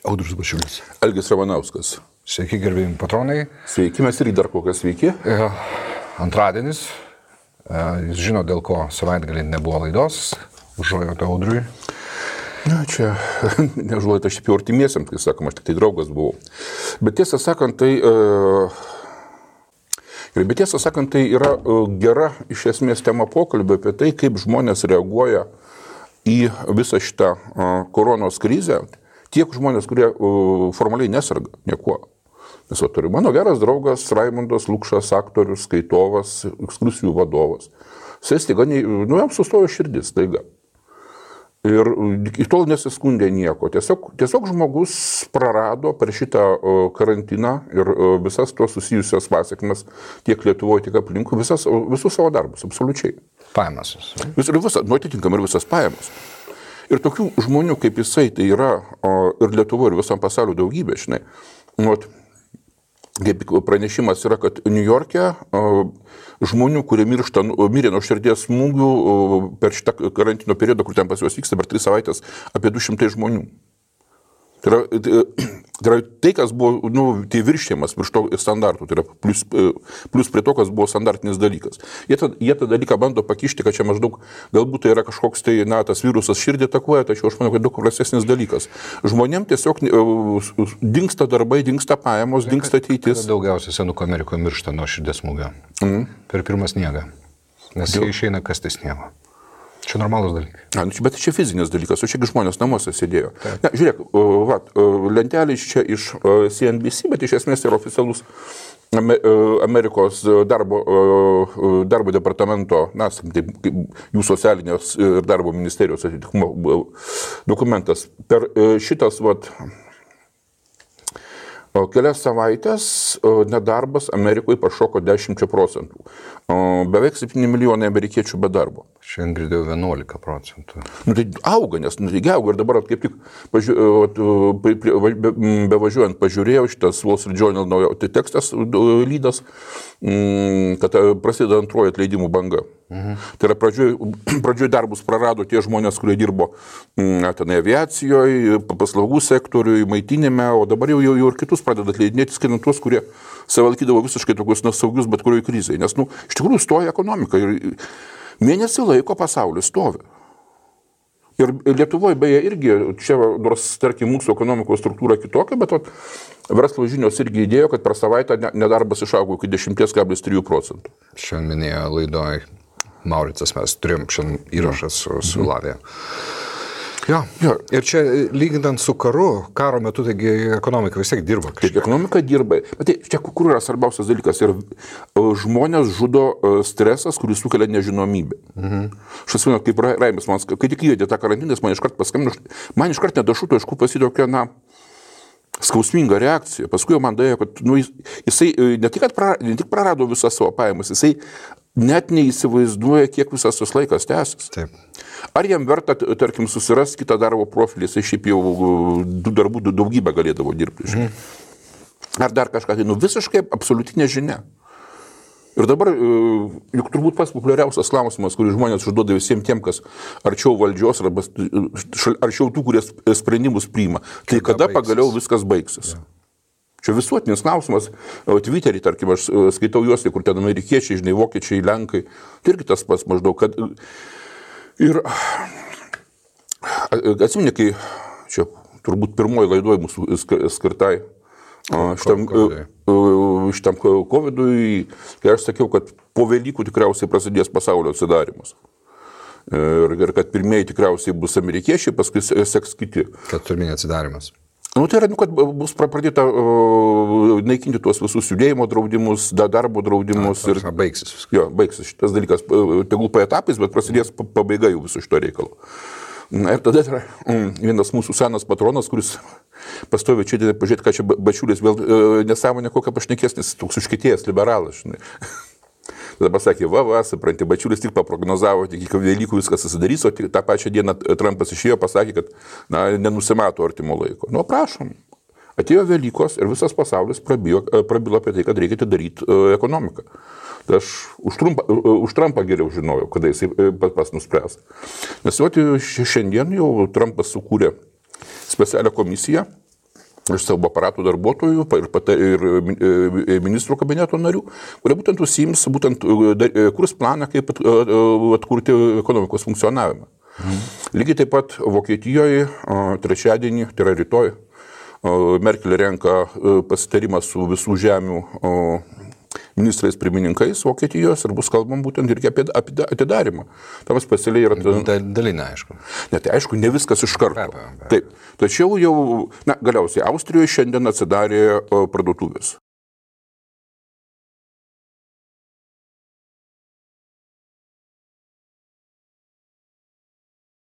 Audrius Bačiulis. Algis Ramanauskas. Sveiki, gerbėjimi patronai. Sveiki, mes irgi dar kokias sveiki. Antradienis. Jūs žino, dėl ko savaitgalį nebuvo laidos. Užuojauta Audriui. Na, čia neužuojauta šiaip jau artimiesiam, kai sakoma, aš tik tai draugas buvau. Bet tiesą sakant, tai yra gera iš esmės tema pokalbio apie tai, kaip žmonės reaguoja į visą šitą koronos krizę. Tiek žmonės, kurie formaliai nesarga niekuo. Nes turiu mano geras draugas Raimundas Lukšas, aktorius, skaitovas, ekskursijų vadovas. Jis staiga, jam sustojo širdis staiga. Ir iki tol nesiskundė nieko. Tiesiog žmogus prarado per šitą karantiną ir visas tos susijusios pasiekmes tiek Lietuvoje, tiek aplinkui, visus savo darbus, absoliučiai. Pajamas. Atitinkamai ir visas pajamas. Ir tokių žmonių kaip jisai, tai yra ir Lietuvoje, ir visam pasauliu daugybė, žinai. Kaip pranešimas yra, kad Niujorke žmonių, kurie mirė nuo širdies smūgių per šitą karantino periodą, kur ten pas juos vyksta per 3 savaitės, apie 200 žmonių. Tai yra tai, kas buvo, tai viršėjimas virš to standartų, tai yra plus prie to, kas buvo standartinis dalykas. Jie tą dalyką bando pakišti, kad čia maždaug, galbūt tai yra kažkoks tai, tas virusas širdį atakuoja, tačiau aš manau, kad daug prastesnis dalykas. Žmonėm tiesiog dingsta darbai, dingsta pajamos, dingsta ateitis. Daugiausiai senukų Amerikoje miršta nuo širdies smūgio. Per pirmą sniegą. Nes jie išeina kasti sniego. Čia normalus dalykas. Bet čia fizinis dalykas, o čiagi žmonės namuose sėdėjo. Ne, žiūrėk, lentelės čia iš CNBC, bet iš esmės tai yra oficialus Amerikos darbo departamento, jų socialinės ir darbo ministerijos atitikmumo dokumentas. Per šitas kelias savaitės nedarbas Amerikoje pašoko 10%. Beveik 7 milijonai amerikiečių be darbo. Šiandien girdėjau 11%. Tai auga, nes auga ir dabar kaip tik bevažiuojant pažiūrėjau šitas Wall Street Journal naujo tekstas lydas, kad prasideda antroji atleidimų banga. Tai yra pradžioj darbus prarado tie žmonės, kurie dirbo aviacijoje, paslaugų sektoriuje, maitinime, o dabar jau ir kitus pradeda atleidinėti, skaitant tuos, kurie save laikydavo visiškai tokius nesaugius bet kurioje krizėje. Nes, iš tikrųjų stoja ekonomika ir mėnesį laiko pasaulis stovi. Ir Lietuvoje beje irgi, čia nors, tarkim, mūsų ekonomikos struktūra kitokia, bet verslo žinios irgi įdėjo, kad per savaitę nedarbas išaugo iki 10,3%. Šiandien minėjo laidoj Mauricas, mes turėjom šiandien įrašą su Lavija. Jo. Ir čia lyginant su karo metu, taigi ekonomika vis tiek dirba. Taip, ekonomika dirba. Bet čia kur yra svarbiausias dalykas? Ir žmonės žudo stresas, kuris sukelia nežinomybę. Aš atsimenu, kaip Raimis, kai tik įvedė tą karantiną, man iškart paskambino, man iškart nedašuto, aišku, pasitokia, skausminga reakcija. Paskui man dėjo, kad jisai ne tik prarado visą savo pajamas, jisai net neįsivaizduoja, kiek visas tas laikas tęsis. Taip. Ar jam verta, tarkim, susirasti kitą darbo profilį, jisai šiaip jau darbų daugybę galėdavo dirbti. Ar dar kažką, tai visiškai absoliutinė žinia. Ir dabar, juk turbūt pats populiariausias klausimas, kurį žmonės užduoda visiems tiem, kas arčiau valdžios, arba arčiau tų, kurie sprendimus priima. Tai kada pagaliau viskas baigsis? Ja. Čia visuotinis klausimas, Twitter'į, tarkim, aš skaitau juos, kur ten amerikiečiai, žinai, vokiečiai, lenkai, tai irgi tas pats maždaug, kad ir atsimeni, kai čia turbūt pirmoji laidoj mūsų skirtai šitam COVID'ui, kai aš sakiau, kad po Velykų tikriausiai prasidės pasaulio atsidarimas. Ir kad pirmieji tikriausiai bus amerikiečiai, paskui seks kiti. Kad pirmieji atsidarimas. Tai yra, kad bus pradėta naikinti tuos visus judėjimo draudimus, darbo draudimus. Baigsis viskas. Jo, baigsis šitas dalykas, tegul po etapais, bet prasidės pabaiga jau viso šito reikalo. Ir tada yra vienas mūsų senas patronas, kuris pastovi čia, pažiūrėti, ką čia Bačiulis vėl nesąmonė kokią pašnekės, nes toks užkietėjęs liberalas, žinai. Tada pasakė, supranti, Bačiulis tik paprognozavo, tik iki Velykų viskas susidarys, o tą pačią dieną Trumpas išėjo, pasakė, kad nenusimato artimo laiko. Prašom. Atėjo Velykos ir visas pasaulis prabilo apie tai, kad reikia atidaryti ekonomiką. Tai aš už Trumpą geriau žinojau, kada jisai pats nuspręs. Nes šiandien jau Trumpas sukūrė specialią komisiją, iš savo aparatų darbuotojų ir ministrų kabineto narių, kurie būtent užsiims, kurs planą, kaip atkurti ekonomikos funkcionavimą. Lygiai taip pat Vokietijoje trečiadienį, tai yra rytoj, Merkel renka pasitarimą su visų žemių ministrais pirmininkais Vokietijos ir bus kalbam būtent irgi apie atidarimą. Tam specialiai yra... Dalinė, aišku. Ne, tai aišku, ne viskas iš karto. Taip. Tačiau jau, galiausiai Austrijoje šiandien atsidarė parduotuvės.